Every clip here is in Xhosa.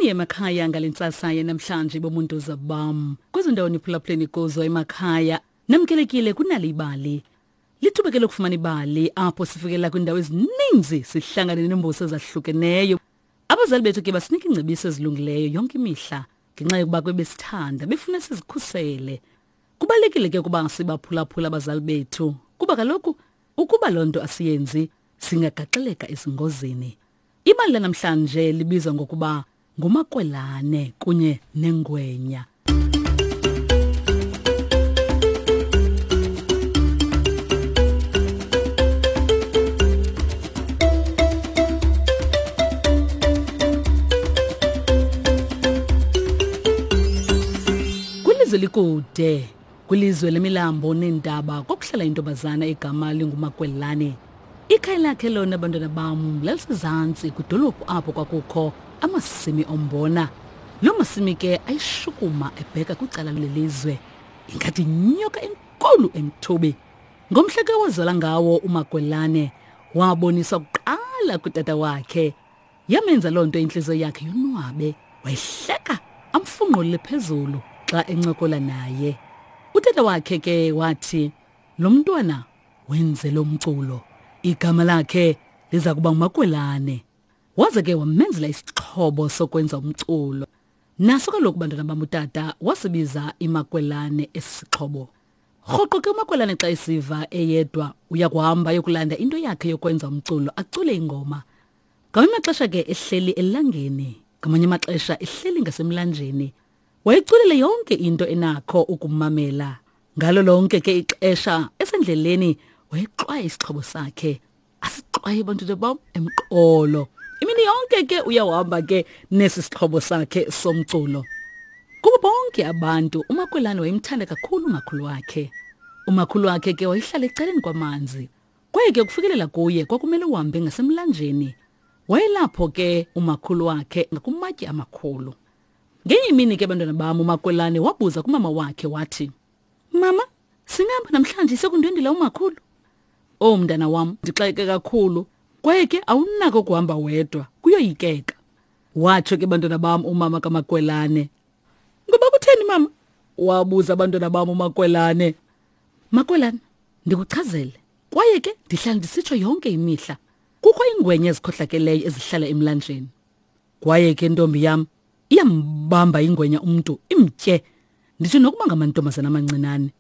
Molweni emakhaya ngale ntsasa yanamhlanje bomuntuza bam. Kwezo ndawo niphulaphuleni kuzo emakhaya, namkelekile kunali ibali. Lithuba ke lokufumana ibali apho sifikela kwiindawo ezininzi sihlangane neembuso ezahlukeneyo. Abazali bethu ke basinika iingcebiso ezilungileyo yonke imihla ngenxa yokuba kwebesithanda befuna sizikhusele. Kubalulekile ke ukuba sibaphulaphula abazali bethu kuba kaloku ukuba loo nto asiyenzi singagaxeleka ezingozini. Ibali lanamhlanje libizwa ngokuba nguMakwelane kunye nengwenya. Kwilizwe likude, kwilizwe lemilambo neentaba kwakuhlala intombazana egama linguMakwelane. Ikhaya lakhe lona bantwana bam lalisezantsi kwidolophu apho kwakukho amasimi ombona. Loo masimi ke ayishukuma ebheka kwicala lelizwe ingathi yinyoka enkulu emthubi. Ngomhla ke wazala ngawo uMakwelane waboniswa kuqala kutata wakhe. Yamenza loo nto intliziyo yakhe yonwabe, wayihleka amfunqulele phezulu xa encokola naye. Utata wakhe ke wathi lo mntwana wenze lo mculo igama lakhe liza kuba ngumakwelane waze ke wamenzela isixhobo sokwenza umculo naso kaloku bantwana bam utata wasibiza imakwelane esi sixhobo rhoqo ke umakwelane xa esiva eyedwa uya kuhamba ayokulanda into yakhe yokwenza umculo acule ingoma ngamanye amaxesha ke ehleli elangeni ngamanye amaxesha ehleli ngasemlanjeni Wayiculele yonke into enakho ukumamela. Ngalo lonke ke ixesha esendleleni wayexwaya isixhobo sakhe. Asixwaye bantwana bam emqolo. Imini yonke ke uyahamba ke nesi sixhobo sakhe somculo. Kubo bonke abantu uMakwelane wayemthanda kakhulu umakhulu wakhe. Umakhulu wakhe ke wayehlala ecaleni kwamanzi. Kwaye ke ukufikelela kuye kwakumele uhambe ngasemlanjeni. Wayelapho ke umakhulu wakhe ngakumatye amakhulu. Ngenye imini ke bantwana bam uMakwelane wabuza kumama wakhe wathi, Mama, singahamba namhlanje sekundwendela umakhulu? Oh mntana wam, ndixakeke kakhulu kwaye ke awunako ukuhamba wedwa, kuyoyikeka. Watsho ke bantwana bam umama kaMakwelane. Ngoba kutheni mama? Wabuza abantwana bam uMakwelane. Makwelane, ndikuchazele. Kwaye ke ndihlala ndisitsho yonke imihla. Kukho iingwenya ezikhohlakeleyo ezihlala emlanjeni. Kwaye ke ntombi yam iyambamba ingwenya umntu imtye nditsho nokuba ngamantombazana amancinane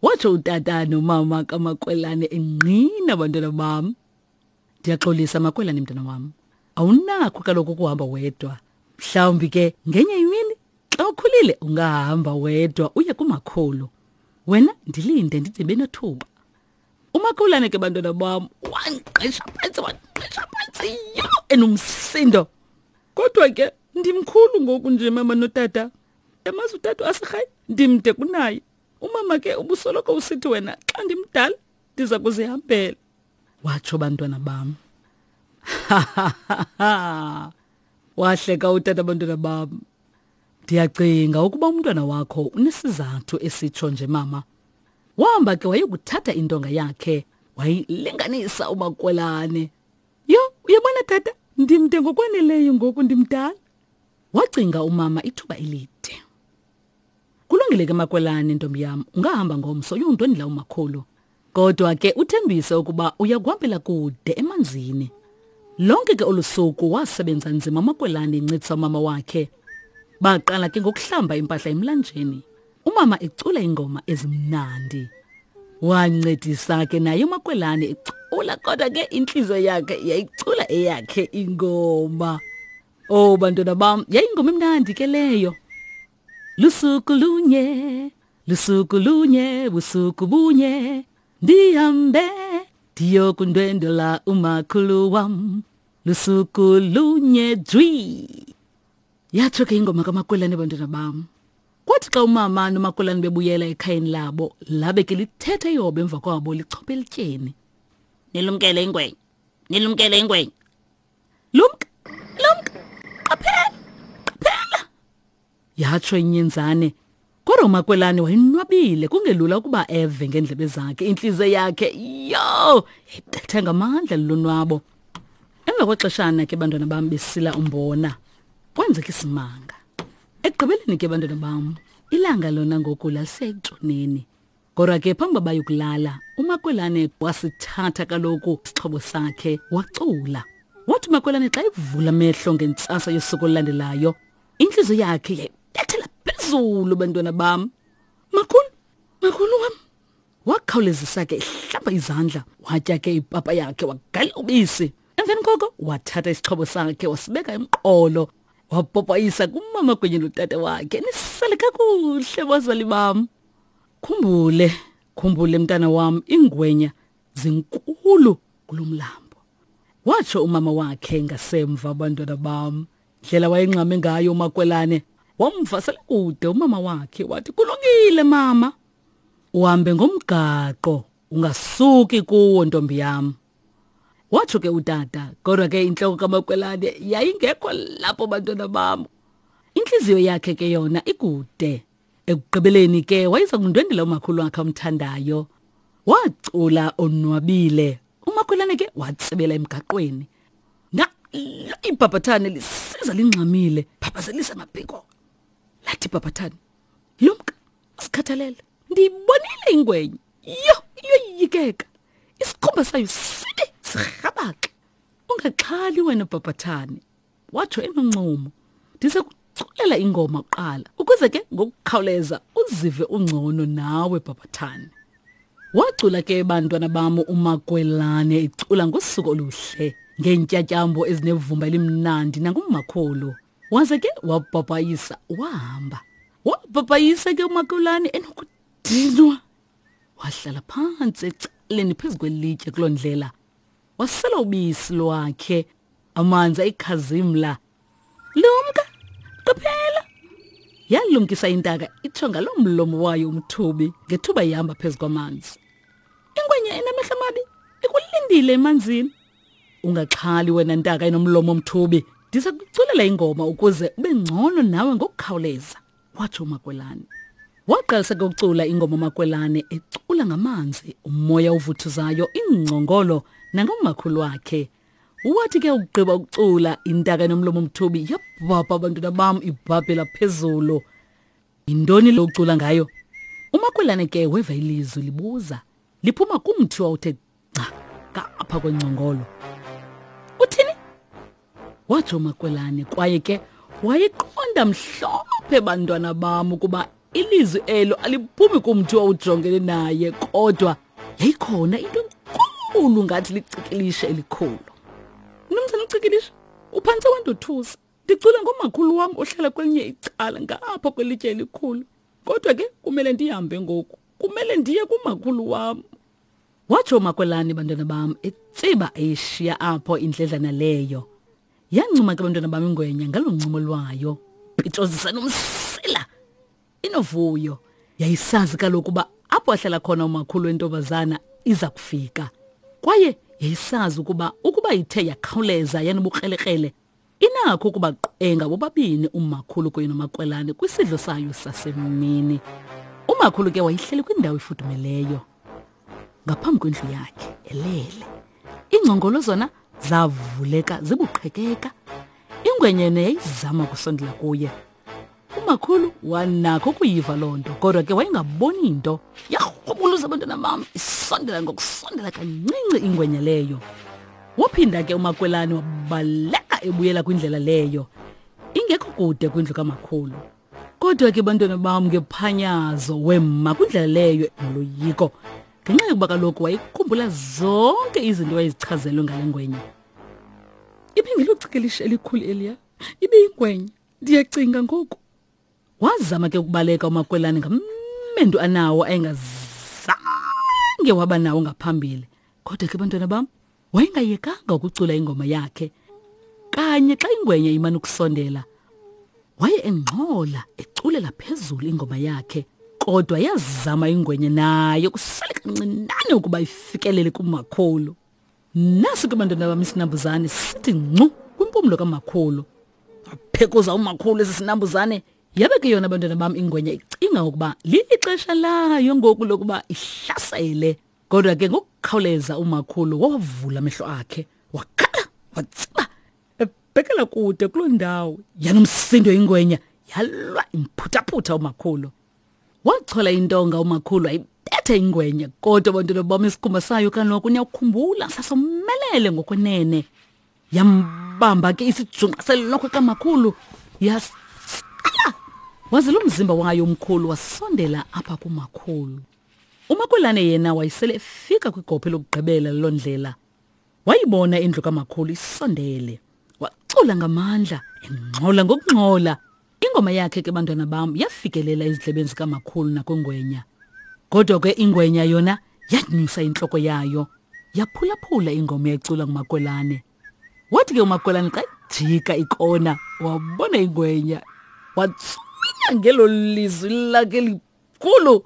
watsho utata nomama kamakwelane engqina bantwana bam ndiyaxolisa makwelane mntana wam awunakho kaloku ukuhamba wedwa mhlawumbi ke ngenye imini xa ukhulile ungahamba wedwa uye kumakhulu wena ndilinde ndide benothuba umakhulane ke bantwana bam wangqisha phantsi wangqisha phantsi yho enomsindo kodwa ke ndimkhulu ngoku nje mama notata yamazi utata asirhayi ndimde kunaye umama ke ubusoloko usithi wena xa ndimdala ndiza kuzihambela watsho bantwana bam wahleka utata bantwana bam ndiyacinga ukuba umntwana wakho unesizathu esitsho nje mama Wahamba ke wayokuthatha intonga yakhe wayilinganisa umakwelane. Yho, uyabona tata, ndimde ngokwaneleyo ngoku ndimdala. Wacinga umama ithuba elide. Kulungile ke makwelane ntombi yam, ungahamba ngomso uyondwendela umakhulu. Kodwa ke uthembise ukuba uya kuhambela kude emanzini. Lonke ke olu suku wasebenza nzima uMakwelane encedisa umama wakhe. Baqala ke ngokuhlamba impahla emlanjeni. Umama ecula ingoma ezimnandi. Wancedisa ke naye uMakwelane ecula kodwa ke intliziyo yakhe yayicula eyakhe ingoma. Oh bantwana bam, yayingoma emnandi ke leyo. Lusuku lunye, lusuku lunye, busuku bunye, ndihambe ndiyokundwendwela umakhulu wam. Lusuku lunye jwi. Yatsho ke ingoma kaMakwelane bantwana bam. Kwathi xa umama noMakwelane bebuyela ekhayeni labo, labe ke lithetha ihobe emva kwabo lichophe elityeni. Nilumkele ingwenya. Nilumkele ingwenya. Lumka, lumka, qaphela, qaphela. Yatsho inyenzane. Kodwa uMakwelane wayenwabile kungelula ukuba eve ngeendlebe zakhe. Intliziyo yakhe yho yayibetha ngamandla lulonwabo. Emva kwexeshana ke bantwana bam besila umbona. Kwenzeka isimanga. Ekugqibeleni ke bantwana bam, ilanga lona ngoku lalisekutshoneni. Kodwa ke phambi uba bayokulala, uMakwelane wasithatha kaloku isixhobo sakhe wacula. Wathi uMakwelane xa evula amehlo ngentsasa yosuku olulandelayo, intliziyo yakhe yayibethela phezulu bantwana bam. Makhulu, makhulu wam. Wakhawulezisa ke ehlamba izandla, watya ke ipapa yakhe wagalela ubisi. Emveni koko wathatha isixhobo sakhe wasibeka emqolo, wapopayisa kumama kunye notata wakhe. Nisale kakuhle bazali bam. Khumbule, khumbule mntana wam, iingwenya zinkulu kulo mlambo. Watsho umama wakhe ngasemva abantwana bam. Ndlela wayengxame ngayo uMakwelane, wamvasela kude umama wakhe wathi kulungile mama. Uhambe ngomgaqo ungasuki kuwo ntombi yam. Watsho ke utata, kodwa ke intloko kaMakwelane yayingekho lapho bantwana bam. Intliziyo yakhe ke yona ikude. Ekugqibeleni ke wayeza kundwendela umakhulu wakhe amthandayo. Wacula onwabile. Umakhwelane ke watsibela emgaqweni. Nalo ibhabhathane lisiza lingxamile, phaphazelisa amaphiko. Lathi ibhabhathane, "Lumka, usikhathalele. Ndiyibonile ingwenya. Yho, iyoyikeka. Isikhumba sayo sibi sirhabaxa. Ungaxhali wena bhabhathane." Watsho enoncumo. Ndiza kuculela ingoma kuqala ukuze ke ngokukhawuleza uzive ungcono nawe bhabhathane. Wacula ke bantwana bam uMakwelane ecula ngosuku oluhle ngeentyatyambo ezinevumba elimnandi nangumakhulu. Waze ke wabhabhayisa wahamba. Wabhabhayisa ke uMakwelane enokudinwa. Wahlala phantsi ecaleni phezu kwelitye kuloo ndlela. Wasela ubisi lwakhe amanzi ayikhazimla. Lumka, qaphela! Yalumkisa intaka itsho ngaloo mlomo wayo umthubi ngethuba ihamba phezu kwamanzi. Ingwenya enamehlo amabi ikulindile emanzini. Ungaxhali wena ntaka enomlomo omthubi, ndiza kuculela ingoma ukuze ube ngcono nawe ngokukhawuleza, watsho uMakwelane. Waqalisa ke ukucula ingoma uMakwelane ecula ngamanzi, umoya ovuthuzayo, iingcongolo nangomakhulu wakhe. Wathi ke ukugqiba ukucula intaka enomlomo omthubi yabhabha abantwana bam ibhabhela phezulu. Yintoni lo ucula ngayo? Umakwelane ke weva ilizwi libuza liphuma kumthi wawuthe gca ngapha kwengcongolo. Uthini? Watsho uMakwelane kwaye ke wayeqonda mhlophe bantwana bam ukuba ilizwi elo aliphumi kumthi owawujongene naye kodwa yayikhona into enkulu ngathi licikilishe elikhulu. Mnumzana ucikilishe, uphantse wandothusa. Ndicula ngomakhulu wam ohlala kwelinye icala ngapha kwelitye elikhulu. Kodwa ke kumele ndihambe ngoku. Kumele ndiye kumakhulu wam. Watsho uMakwelane bantwana bam etsiba eyishiya apho indledlana leyo. Yancuma ke bantwana bam ingwenya ngalo ncumo lwayo. Pitshozisa nomsila. Inovuyo. Yayisazi kaloku uba apho ahlala khona umakhulu wentombazana iza kufika. Kwaye yayisazi ukuba ukuba ithe yakhawuleza yanobukrelekrele Inakho ukubaqwenga bobabini umakhulu kunye nomakwelane kwisidlo sayo sasemini. Umakhulu ke wayehleli kwindawo efudumeleyo ngaphambi kwendlu yakhe elele. Iingcongolo zona zavuleka zibuqhekeka. Ingwenyene yayizama ukusondela kuye. Umakhulu wanakho ukuyiva loo nto kodwa ke wayengaboni nto. Yarhubuluza abantwana bam isondela ngokusondela kancinci ingwenya leyo. Waphinda ke uMakwelane wabaleka ebuyela kwindlela leyo ingekho kude kwindlu kamakhulu. Kodwa ke bantwana bam ngephanyazo wema kwindlela leyo noloyiko ngenxa yokuba kaloku wayekhumbula zonke izinto wayezichazelwe ngale ngwenya. Ibingelocekelisha elikhulu eliya, ibiyingwenya. Ndiyacinga ngoku. Wazama ke ukubaleka uMakwelane ngamendu anawo ayengazange waba nawo ngaphambili. Kodwa ke bantwana bam, wayengayekanga ukucula ingoma yakhe. Kanye xa ingwenya imane ukusondela, waye engxola eculela phezulu ingoma yakhe. Kodwa yazama ingwenya nayo kusale kancinane ukuba ifikelele kumakhulu. Nasi ke bantwana bam isinambuzane sithi ncu kwimpumlo kamakhulu. Waphekuza umakhulu esi sinambuzane yabe ke yona bantwana bam ingwenya icinga ukuba lixesha layo ngoku lokuba ihlasele. Kodwa ke ngokukhawuleza umakhulu wawavula amehlo akhe wakhala watsiba. Wabhekela kude kuloo ndawo. Yanomsindo ingwenya, yalwa imphuthaphutha umakhulu. Wachola intonga umakhulu ayibetha ingwenya, kodwa bantwana bam isikhumba sayo kaloku niyakukhumbula sasomelele ngokwenene. Yambamba ke isijunqa selokhwe kamakhulu yasala. Waze lo mzimba wayo omkhulu wasondela apha kumakhulu. Umakwelane yena wayesele efika kwigophe lokugqibela loo ndlela. Wayibona indlu kamakhulu isondele. Wacula ngamandla, engxola ngokungxola. Ingoma yakhe ke bantwana bam yafikelela ezindlebeni zikamakhulu nakwingwenya. Kodwa ke ingwenya yona yanyusa intloko yayo, yaphulaphula ingoma eyayicula nguMakwelane. Wathi ke uMakwelane xa ejika ikona, wabona ingwenya. Watswinya ngelo lizwi lakhe likhulu.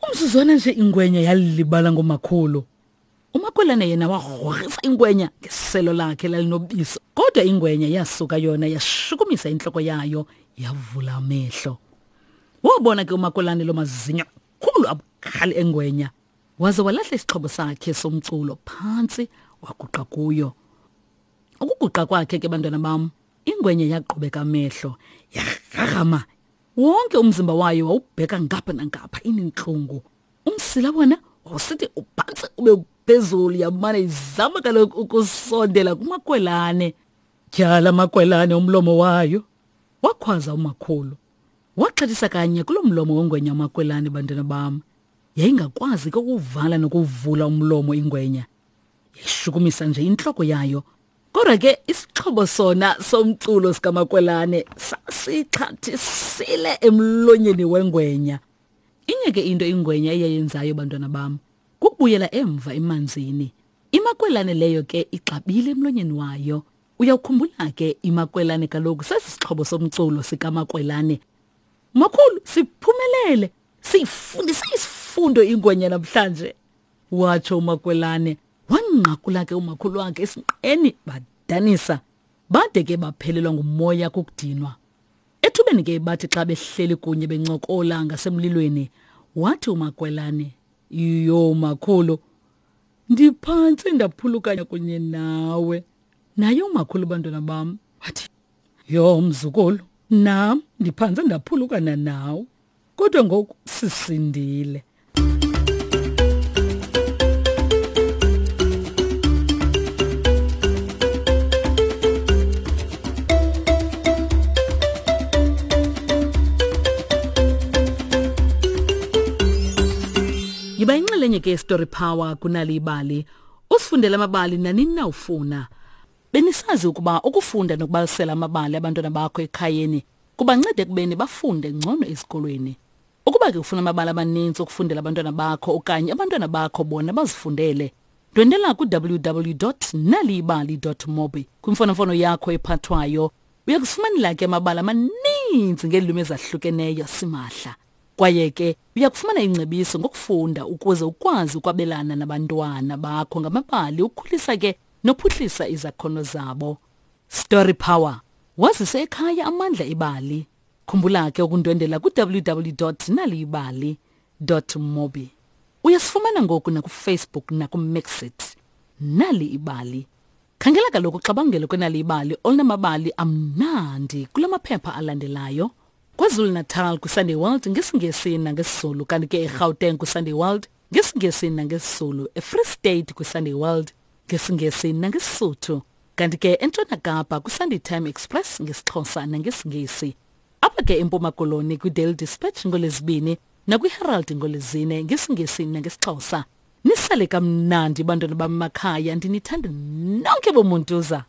Umzuzwana nje ingwenya yalibala ngomakhulu. Umakwelane yena wagrogrisa ingwenya ngeselo lakhe lalinobisi, kodwa ingwenya yasuka yona yashukumisa intloko yayo yavula amehlo. Wabona ke umakwelane lo mazinyo khulu abukhali engwenya, waze walahla isixhobo sakhe somculo phantsi waguqa kuyo. Ukuguqa kwakhe ke bantwana bam, ingwenya yaqhubeka amehlo, yarharhama. Wonke umzimba wayo wawubheka ngapha nangapha inentlungu. Umsila wona wawusithi uphantsi ube phezulu, yamane izama kaloku ukusondela kumakwelane. Tyhala makwelane umlomo wayo, wakhwaza umakhulu. Waxhathisa kanye kulo mlomo wengwenya umakwelane, bantwana bam. Yayingakwazi ke ukuvala nokuvula umlomo ingwenya. Yayishukumisa nje intloko yayo. Kodwa ke isixhobo sona somculo sikamakwelane sasixhathisile emlonyeni wengwenya. Inye ke into ingwenya eyayenzayo bantwana bam, kukubuyela emva emanzini. Imakwelane leyo ke ixabile emlonyeni wayo. Uyawukhumbula ke imakwelane kaloku sesi sixhobo somculo sikamakwelane. Makhulu, siphumelele. Siyifundise isifundo ingwenya namhlanje, watsho umakwelane. Wanqakula ke umakhulu wakhe esinqeni badanisa. Bade ke baphelelwa ngumoya kukudinwa. Ethubeni ke bathi xa behleli kunye bencokola ngasemlilweni, wathi uMakwelane, "Yho makhulu, ndiphantse ndaphulukanya kunye nawe." Naye umakhulu bantwana bam wathi, "Yho mzukulu, nam ndiphantse ndaphulukana nawe, kodwa ngoku sisindile." Yiba inxalenye ke Story Power kunali ibali. Usifundele amabali nanini na ufuna. Benisazi ukuba ukufunda nokubalisela amabali abantwana bakho ekhayeni kubanceda ekubeni bafunde ngcono esikolweni. Ukuba ke ufuna amabali amaninzi okufundela abantwana bakho okanye abantwana bakho bona bazifundele, ndwendela ku-www.naliyibali.mobi kwimfonomfono yakho ephathwayo. Uya kufumanela ke amabali amaninzi ngeelwimi ezahlukeneyo simahla. Kwaye ke uya kufumana ingcebiso ngokufunda ukuze ukwazi ukwabelana nabantwana bakho ngamabali ukhulisa ke nophuhlisa izakhono zabo. Story Power. Wazise ekhaya amandla ebali. Khumbula ke ukundwendela ku-www.naliyibali.mobi. Uyasifumana ngoku nakuFacebook nakuMixit. Nali ibali. Khangela kaloku uxabangelo kwenali ibali olunamabali amnandi kula maphepha alandelayo. KwaZulu-Natal kwiSunday World ngesiNgesi nangesiZulu, kanti ke eGauteng kwiSunday World ngesiNgesi nangesiZulu, eFree State kwiSunday World ngesiNgesi nangeSisuthu, kanti ke eNtshona Kapa kwiSunday Time Express ngesiXhosa nangesiNgesi. Apha ke eMpuma Koloni kwiDaily Dispatch ngoLwezibini nakwiHerald ngoLwezine ngesiNgesi nangesiXhosa. Nisale kamnandi bantwana bamakhaya, ndinithanda nonke bomuntuza.